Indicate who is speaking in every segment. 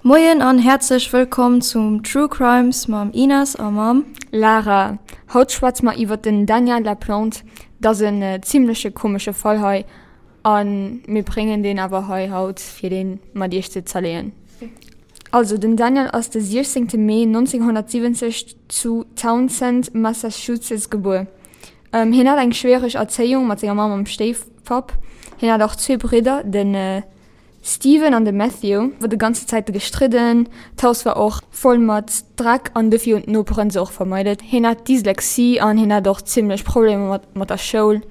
Speaker 1: Moien an häerzlech wëllkomm zum True Crimes mam Ines a mam.
Speaker 2: Lara. Haut schwätze mer iwwert den Daniel Laplante. Dat ass en zimmleche komesche Fall hei a mir bréngen deen awer hei haut fir deen mat iech ze zerleeën. Also den Daniel ass de 16 Mee 1970 zu Townsend, Massachusetts gebuer. Hien hat eng schwiereg Erzéiung mat senger Mamm am Stéifpapp. Hien hat och zwee Bridder, de Steven an de Matthew. War de ganze Zäite gestridden. D'Haus war och voll mat Dreck an dofir hunn d'Noperen se och vermeidet. Hien hat Dyslexie an hien hat och zimmlech Problemer mat mat der Schoul.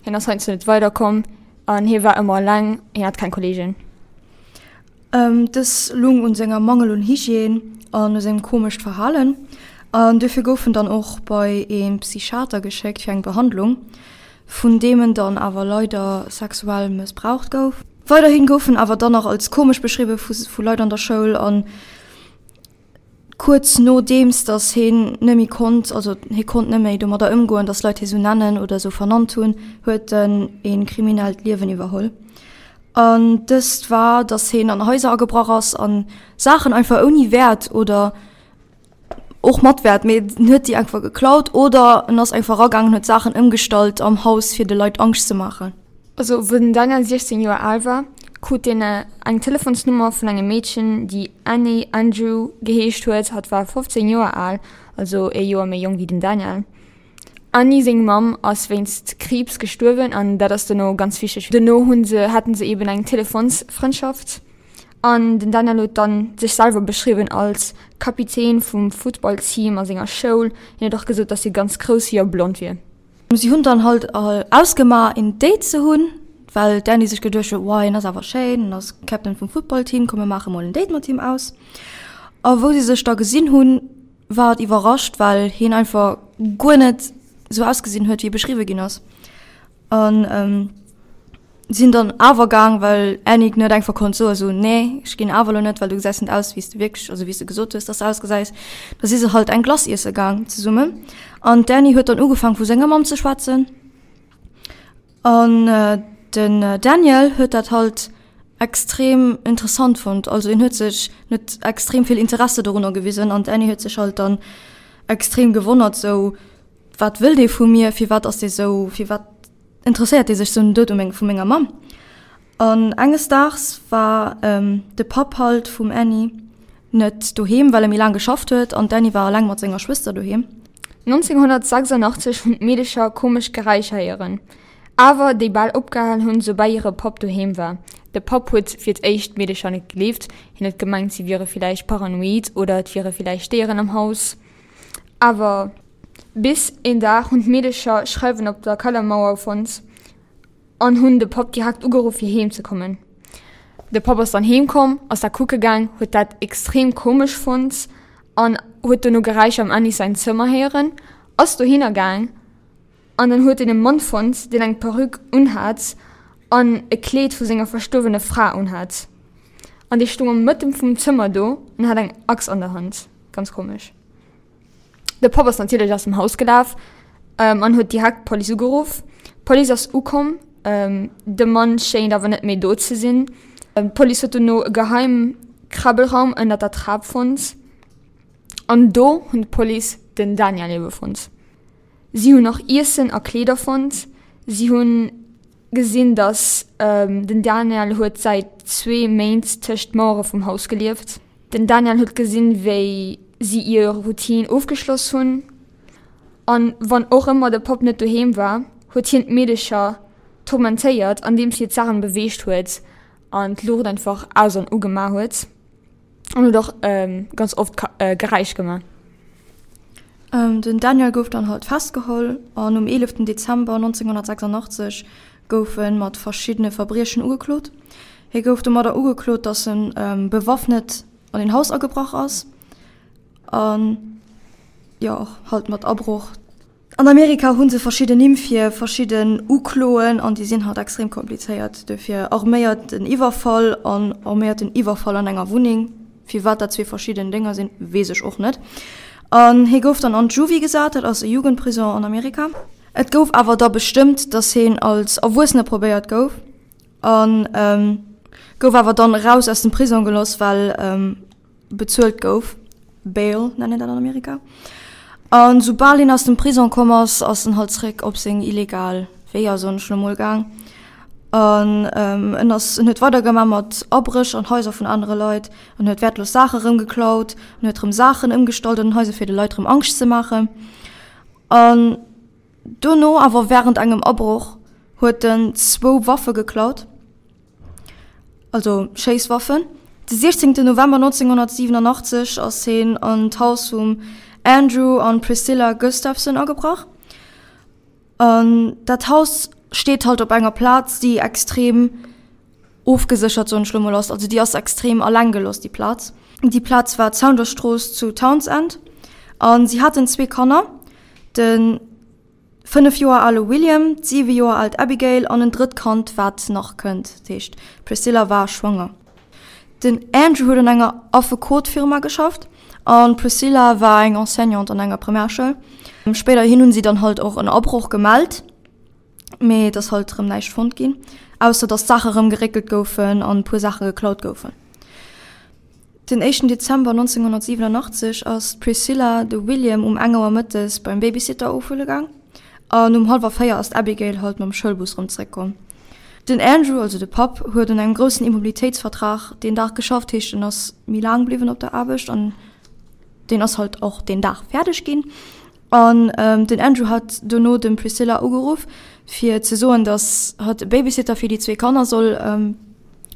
Speaker 2: Hien ass heiansdo net weiderkomm an hie war ëmmer eleng, hien hat keng Kolleegen.
Speaker 1: Dës lung un senger Mangel un Hygiène an u sengem komescht Verhalen an duerfir gouf en dann och bei ee Psychiater geschéckt fir eng Behandlung, vun deem en dann awer leider sexuell mëssbraucht gouf. Weiderhin gouf en awer dann nach als komesch beschriwwe vu Leit an der Schoul an kuerz nodeems datt heen net méi konnt, also hie konnt net méi domadder ëmgoen, datt Leit hie sou nennen oder sou vernannt hunn, huet en ee kriminellt Liewen iwwerholl. An dëst war, datt hien an Haiser agebrach ass an Saachen einfach ouni Wäert oder och mat Wäert, mee en huet déi einfach geklaut oder en ass einfach eragaangen, huet Saachen ëmgestallt am Haus fir de Leit Angscht ze maachen.
Speaker 2: Also wou den Daniel 16 Joer al war, krut deen eng Telefonsnummer vun engem Meedchen, déi Annie Andrew geheescht huet. Hatt war 15 Joer al, also ee Joer méi jonk wéi den Daniel. Annie seng Mamm ass wéinst Kriibs gestuerwen an dat ass dono ganz wichteg. Dono hunn se, haten se eben eng Telefonsfrëndschaft an den Daniel huet dann sech selwer beschriwwen als Kapitän vum Futtballteam a senger Schoul. Hien huet och gesot, dass hie ganz grouss wier a blond wier.
Speaker 1: Si hunn dann halt ausgemaach een Date ze hunn, well d'Annie sech geduecht huet, wow hien ass awer schéin, en ass Captain vum Footballteam, komm mir maache mol en Date mat him aus. A wou si sech da gesinn hunn, war et iwwerrascht, well hien einfach guer net sou ausgesinn huet, wéi e beschriwwe ginn ass. An sinn dann awer gaang, well Annick net einfach konnt soen, sou, nee, ech ginn awer elo net, well du gesäis net aus, wéi s de wierklech, also wéi s de gesot hues, dass de ausgesäis. Da si se halt eng Glace iesse gaang zesummen. An d'Annie huet dann ugefaang vu senger Mamm ze schwätzen. An den Daniel huet dat halt extrem interessant fonnt. Also en huet sech net extrem vill Interesse dorunner gewisen an d'Annie huet sech halt dann extrem gewonnert, sou, wat wëll dee vu mir, firwat ass dee sou, firwat interesséiert dee sech sou den Doud u meng vu menger Mamm. An enges Daags war de Papp halt vum Annie net doheem, well e méi laang geschafft huet an d'Annie war eleng mat senger Schwëster doheem.
Speaker 2: 1986 hunn d'Meedecher komesch Geräischer héieren, awer déi bal opgehal hunn, soubal hire Papp doheem war. De Papp huet fir d'éischt d'Meedecher net gleeft, hien huet gemengt, si wiere villäicht paranoid oder et wiere villäicht Déieren am Haus. Awer bis een Dag hunn d'Meedecher Schreiwen op der Kellermauer fonnt. An hunn de Papp direkt ugeruff fir heem ze kommen. De Papp ass dann heem komm, ass da kucke gaang, huet dat extrem komesch fonnt an huet dono Geräischer am Annie säin Zëmmer héieren, ass dohinner gaang an dann huet en e Mann fonnt, deen eng Perruque unhat an e Kleed vu senger verstuerwene Fra unhat. An dee stoung am Mëtten vum Zëmmer do an hat eng Axt an der Hand. Ganz komesch. De Papp ass natierlech aus dem Haus gelaf an huet direkt d'Police ugeruff. D'Police ass ukomm, de Mann schéint awer net méi do ze sinn. D'Police huet dono e geheim Krabbelraum ënnert der Trap fonnt an do hunn d'Police den Daniel ebe fonnt. Si hunn och Iessen a Kleeder fonnt. Si hunn gesinn, dass den Daniel huet säit zwee Méint tëscht d'Mauere vum Haus gelieft. Den Daniel huet gesinn, wéi si ihr Routine ofgeschloss hunn. An wann och ëmmer de Papp net doheem war, huet hien d'Meedecher turmentéiert, andeems hie d'Saachen beweegt huet an d'Luucht einfach aus an ugemaach huet. An huet och ganz oft Geräisch gemaach.
Speaker 1: Den Daniel gouf dann halt festgeholl an um 11 Dezember 1986 gouf e mat verschiddene Verbriechen ugeklot. Hie gouf domadder ugeklot, datt en bewaffnet an een Haus agebrach ass an jo och halt mat Abroch. An Amerika hu se verschidden Nimm fir verschidden Ukloen an déi sinn halt extrem komplizéiert. Dofir arméierten Iwwerfall an arméierten Iwwerfall an enger Wunneng. Firwat dat zwee verschidden Dénger sinn, weess ech och net. An hie gouf dann an d'Juvie gesat, dat ass e Jugendprison an Amerika. Et gouf awer da bestëmmt, datt hien als Erwuessene probéiert gouf. An. Gouf awer dann eraus aus dem Prisong geloss, well bezuelt gouf, Bail nennt een dat an Amerika. An soubal hien aus dem Prisong komm ass, ass en halt zréck op seng illegal Weeër, soen ech lo mol, gaang. An en ass, en huet weider gemaach mat Abréch an Haiser vun anere Leit, en huet wäertlos Saache rëm geklaut, en huet rëm Saachen ëmgestallt an den Haiser fir de Leit rëm Angscht ze maachen. An dono awer wärend engem Abroch huet en zwou Waffe geklaut. also Schéisswaffen. De 16 November 1987 ass hien an d'Haus vum Andrew an Priscilla Gustafson agebrach. An dat Haus steet halt op enger Plaz, déi extrem ofgeséchert, soen ech lo mol, ass. Also déi ass extrem alleng gelooss, déi Plaz. Déi Plaz war d'Saundersstrooss zu Townsend. A si haten zwee Kanner, de. 5 Joer ale William, d'7 Joer aalt Abigail an en drëtt Kand, wat nach kënnt. Dat heescht, d'Priscilla war schwanger. Den Andrew huet an enger Affekotfirma geschafft an d'Priscilla war eng Enseignante an enger Primärschoul. Spéiderhin hunn si dann halt och en Abroch gemellt, mee et ass halt erëm näischt fonnt ginn, ausser datt d'Saache erëm geréckelt goufen an e puer Saache geklaut goufen. Den éischten Dezember 1987 ass d'Priscilla de William um eng Auer mëttes beim Babysitter ofhuele gaang an um hallwer 4 ass d'Abigail halt mam Schoulbus rëm zeréckkomm. Den Andrew, also de Papp, huet un engem groussen Immobilitéitsvertrag deen Dag geschafft, heescht en ass méi laang bliwwen op der Aarbecht an deen ass halt och deen Dag fäerdeg ginn. An den Andrew hat dono dem Priscilla ugeruff fir ze soen, datt hatt e Babysitter fir déi zwee Kanner soll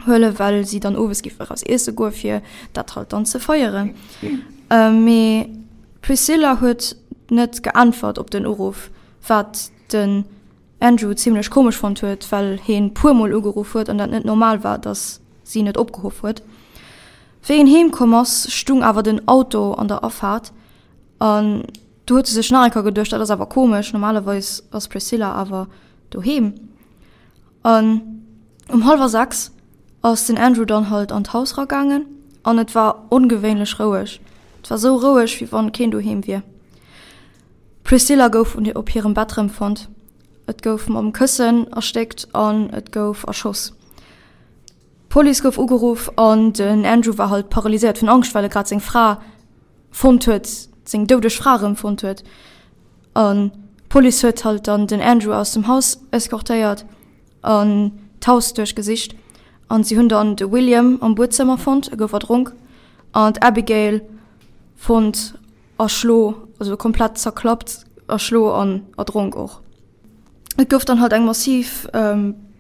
Speaker 1: huelen, well si dann owes géif eraus iesse goe fir dat halt dann ze feieren. Mee d'Priscilla huet net geäntwert op den Uruff, wat den Andrew zimmlech komesch fonnt huet, well heen puer mol ugeruff huet an dat net normal war, datt si net opgehoff huet. Wéi en heem komm ass, stung awer den Auto an der Afaart an du huet e sech nach eng Kéier geduecht, dat ass awer komesch, normalerweis ass d'Priscilla awer doheem. An um hallwer 6 ass den Andrew dann halt an d'Haus ragaangen an et war ongewéinlech roueg. Et war sou roueg, wéi wann keen doheem wier. D'Priscilla gouf op hirem Bett rëmfonnt. Et gouf mam Këssen erstéckt an et gouf erschoss. D'Police gouf ugeruff an den Andrew war halt paralyséiert vun Angscht, well e grad seng Fra fonnt huet, seng doudeg Fra erëmfonnt huet. An d'Police huet halt dann den Andrew aus dem Haus eskortéiert an d'Haus duerchgesicht. An si hunn dann de William am Buedzëmmer fonnt, e gouf erdronk, an d'Abigail fonnt erschlo, also komplett zerklappt, erschlo an erdronk och. Et gouf dann halt eng massiv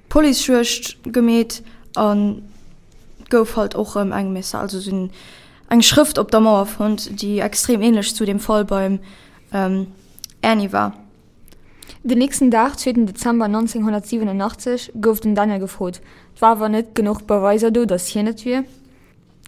Speaker 1: Policejuegd gemeet an et gouf halt och rëm eng Messa, also sou eng Schrëft op der Mauer fonnt, déi extrem ähnlech zu dem Fall beim Ernie war.
Speaker 2: Den nächsten Dag, zweeten Dezember 1987, gouf den Daniel gefrot. Et war awer net genuch Beweiser do, datt hien et wier.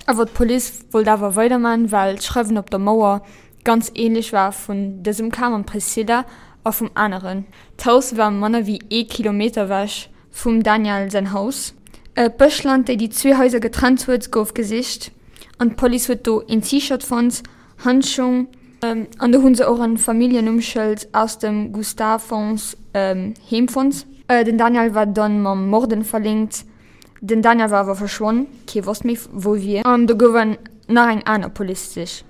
Speaker 2: Awer d'Police wollt awer weiderman, well d'Schreiwen op der Mauer ganz ähnlech war vun dësem Cas mam Priscilla a vum aneren. D'Haus war manner wéi ee Kilometer ewech vum Daniel säin Haus. D'Bëschland, déi déi zwee Haiser getrennt huet, gouf gesicht an d'Police huet do een T-Shirt fonnt, Handschung an do hu se och e Familljennummschëld aus dem Gustavsons Heem fonnt. Den Daniel war dann mam Morden verlinkt. Den Daniel war awer verschwonn, kee wosst méi wou e wier. An do gouf en nach eng aner Policesich.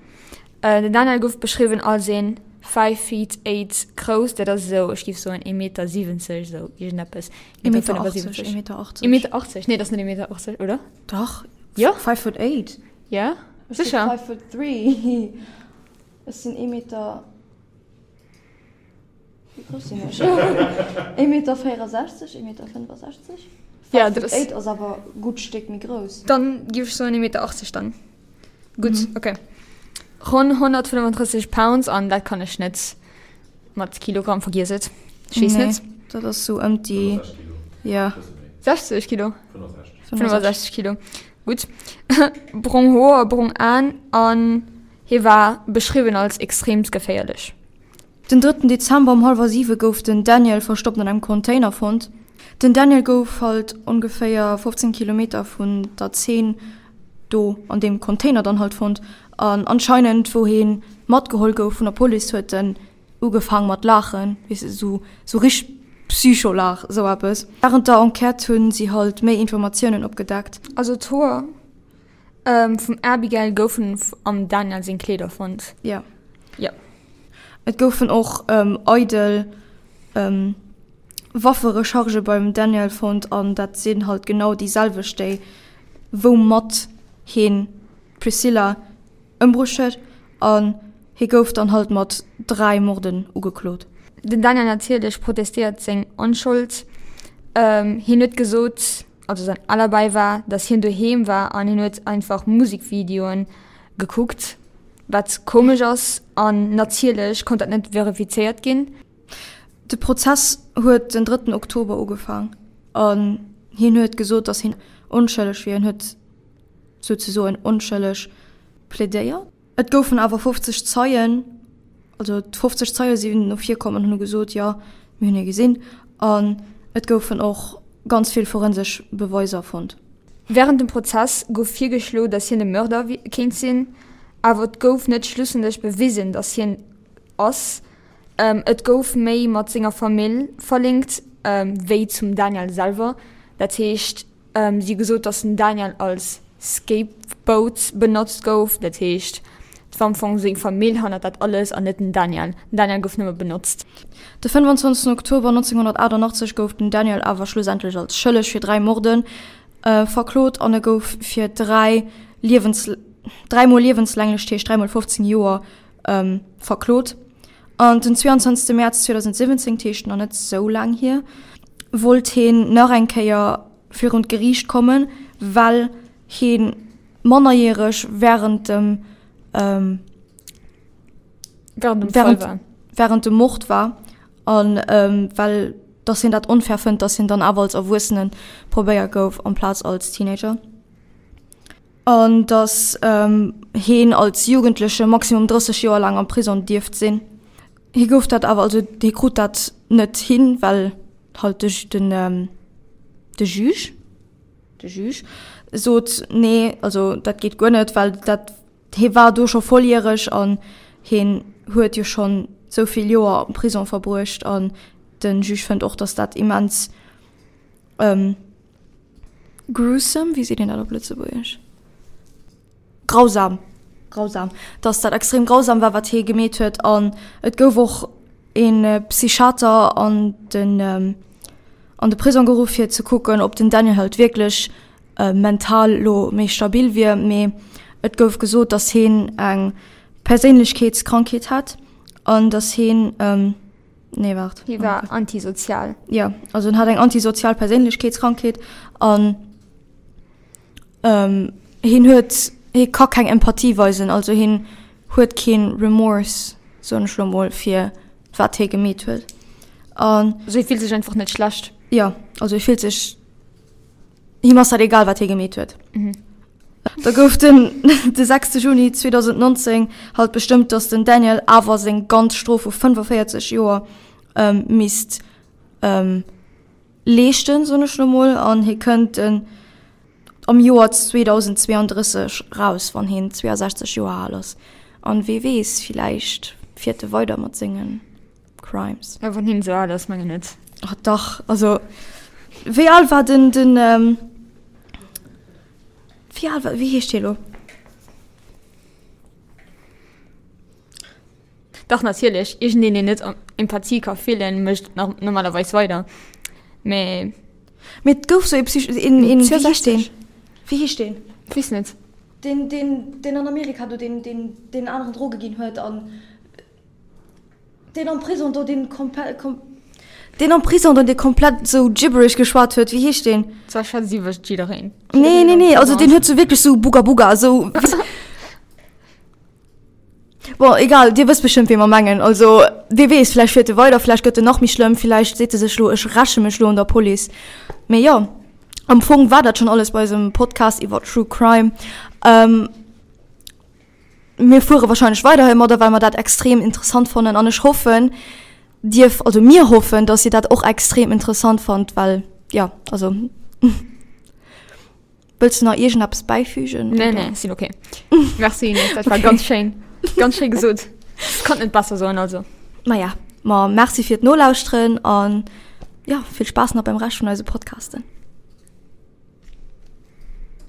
Speaker 2: Den Daniel gouf beschriwwen als een 5 feet 8 grouss, dat ass esou, ech géif soen ee Meter 70, esou iergendeppes.
Speaker 1: Ee Meter 80, ee Meter 80.
Speaker 2: Ee Meter 80, nee dat ass net ee Meter 80, oder?
Speaker 1: Dach.
Speaker 2: Jo?
Speaker 1: 5 foot 8.
Speaker 2: Ja,
Speaker 1: sécher. 5 foot 3. Ech sinn ee Meter. Wéi grouss sinn ech? Ee Meter 64, ee Meter 65?
Speaker 2: Ja, dat ass.
Speaker 1: 8 ass awer e gutt Stéck méi grouss.
Speaker 2: Dann géif ech soen ee Meter 80 dann. Gutt, mhm. okay. Ronn 135 Pounds an dat kann ech net mat Kilogramm, vergiess et. Ech weess
Speaker 1: nee,
Speaker 2: net.
Speaker 1: Dat ass sou ëm déi. Ja.
Speaker 2: 60 Kilo? 65 Kilo. Gutt. Brong Hoer, brong Aen an hie war beschriwwen als extreemst geféierlech.
Speaker 1: Den drëtten Dezember um hallwer siwe gouf den Daniel verstoppt an engem Container fonnt. Den Daniel gouf halt ongeféier 15 Kilometer vun der Zeen do an deem Container dann halt fonnt an anscheinend wou heen matgeholl gouf vun der Police huet en ugefaang mat laachen, weess de, sou sou richteg. Psycholag, esou eppes. Wärend der Enquête hunn si halt méi Informatiounen opgedeckt.
Speaker 2: Also d'Hoer vum Abigail goufen am Daniel seng Kleeder fonnt.
Speaker 1: Jo.
Speaker 2: Jo.
Speaker 1: Et goufen och eidel Wafferechargë beim Daniel fonnt an dat sinn halt genau déi selwecht déi woumat heen d'Priscilla ëmbruecht huet an hie gouf dann halt mat 3 Morden ugeklot.
Speaker 2: Den Daniel natierlech protestéiert seng Onschold. Hien huet gesot, also säin Alibi war, datt hien doheem war an hien huet einfach Musekvideoen gekuckt, wat komesch ass an natierlech konnt dat net verifizéiert ginn.
Speaker 1: De Prozess huet den drëtten Oktober ugefaang an hien huet gesot, datt hien onschëlleg wier. Hien huet souzesoen onschëlleg plädéiert. Et goufen awer 50 Zeien, also 50 Zeie sinn no vir komm an hunn gesot, jo, mir hunn hie gesinn. An et goufen och ganz vill forensesch Beweiser fonnt.
Speaker 2: Wärend dem Prozess gouf virgeschlo, datt hien de Mörder kéint sinn, awer et gouf net schlussendlech bewisen, datt hien ass. Et gouf méi mat senger Famill verlinkt wéi zum Daniel selwer. Dat heescht, si hu gesot, datt den Daniel als Scapegoat benotzt gouf. Dat heescht, et war am Fong seng Famill hannert dat alles an net den Daniel. Den Daniel gouf nëmme benotzt.
Speaker 1: De 25 Oktober 1988 gouf den Daniel awer schlussendlech als schëlleg fir 3 Morde verklot an e gouf fir 3 Liewens 3 mol liewenslänglech, dat heescht 3 mol 15 Joer, verklot. An den 22 Mäerz 2017, dat heescht nach net sou laang hier, wollt heen nach eng Kéier virun d'Geriicht kommen, well hee mannerjäreg wärend dem wärend dem Mord war an well dass hien dat onfair fënnt, dass hien dann awer als Erwuessene probéiert gouf amplaz als Teenager. An datt heen als Jugendleche maximum 30 Joer laang am Prisong dierft sinn. Hie gouf dat awer, also hie krut dat net hin, well halt de den de Juge, de Juge sot, nee, also dat geet guer net, well dat hie war do scho volljäreg an hien huet jo schonn esou vill Joer am Prisong verbruecht an de Juge fënnt och, datt dat immens Gruesome, wéi seet een dat op Lëtzebuergesch? Grausam, grausam, dass dat extrem grausam war, wat hie gemeet huet. An et gouf och e Psychiater an den, an de Prisong geruff, fir ze kucken, ob den Daniel halt wierklech mental lo méi stabil wier. Mee et gouf gesot, dass hien eng Perséinlechkeetskrankheet hätt an dass hien, Nee, waart.
Speaker 2: Hie war antisozial.
Speaker 1: Ja, also en hat eng antisozial Perséinlechkeetskrankheet an ähm, hien huet, hie ka keng Empathie weisen, also hien huet keen Remorse, soen ech lo mol, fir wat hie gemeet huet.
Speaker 2: An. Also hie fillt sech einfach net schlecht.
Speaker 1: Ja, also hie fillt sech, him ass dat egal, wat hie gemeet huet.
Speaker 2: Mhm.
Speaker 1: Da gouf den de 6 Juni 2019 halt bestëmmt, datt den Daniel awer seng ganz Strof vu 45 Joer ähm, misst ähm, leeschten, soen ech lo mol, an hie kënnt den am Joer 2032 raus, wann hien 62 Joer al ass. An wee weess, villäicht fiert e weider mat sengen Crimes.
Speaker 2: Ja, wann hien esou al ass, mengen net.
Speaker 1: Oh, dach, also wéi al war den den ähm, Wéi al war, wéi heescht hie lo?
Speaker 2: Dach natierlech, iergendeen deen net Empathie ka fillen, mécht normalerweis weider, mee.
Speaker 1: Mee et gouf sou ee Psych, een, een, wéi heescht deen? Wéi heescht deen?
Speaker 2: Weess net.
Speaker 1: Deen, deen, deen an Amerika do, deen, deen, deen aneren Droge ginn huet an. Deen am Prison do, deen komplett, deen am Prison do, dee komplett sou gibberish geschwat huet, wéi heescht deen?
Speaker 2: Zwar schwätzt iwwer jiddereen.
Speaker 1: Nee, nee, nee, also deen huet sou wierklech sou Buga Buga, sou. Bon, egal, dir wësst bestëmmt, wee mer mengen. Also, wee weess, vläicht fiert e weider, vläicht gëtt en nach méi schlëmm, vläicht seet e sech lo, ech räche mech lo un der Police. Mee jo, am Fong war dat schonn alles bei eisem Podcast iwwer True Crime. Mir fuere wahrscheinlech weider heimadder, well mer dat extrem interessant fannen an ech hoffen, Dir, also mir hoffen, dass Dir dat och extrem interessant fannt, well jo, also wëlls du nach iergendeppes bäifügen?
Speaker 2: Nee, nee, sinn okay. Merci Ines, dat war ganz schéin, ganz schéi gesot. Ech konnt net besser soen, also.
Speaker 1: Maja, ma merci fir d'Nolauschteren an. jo, vill Spaass nach beim Rescht vun eise Podcasten.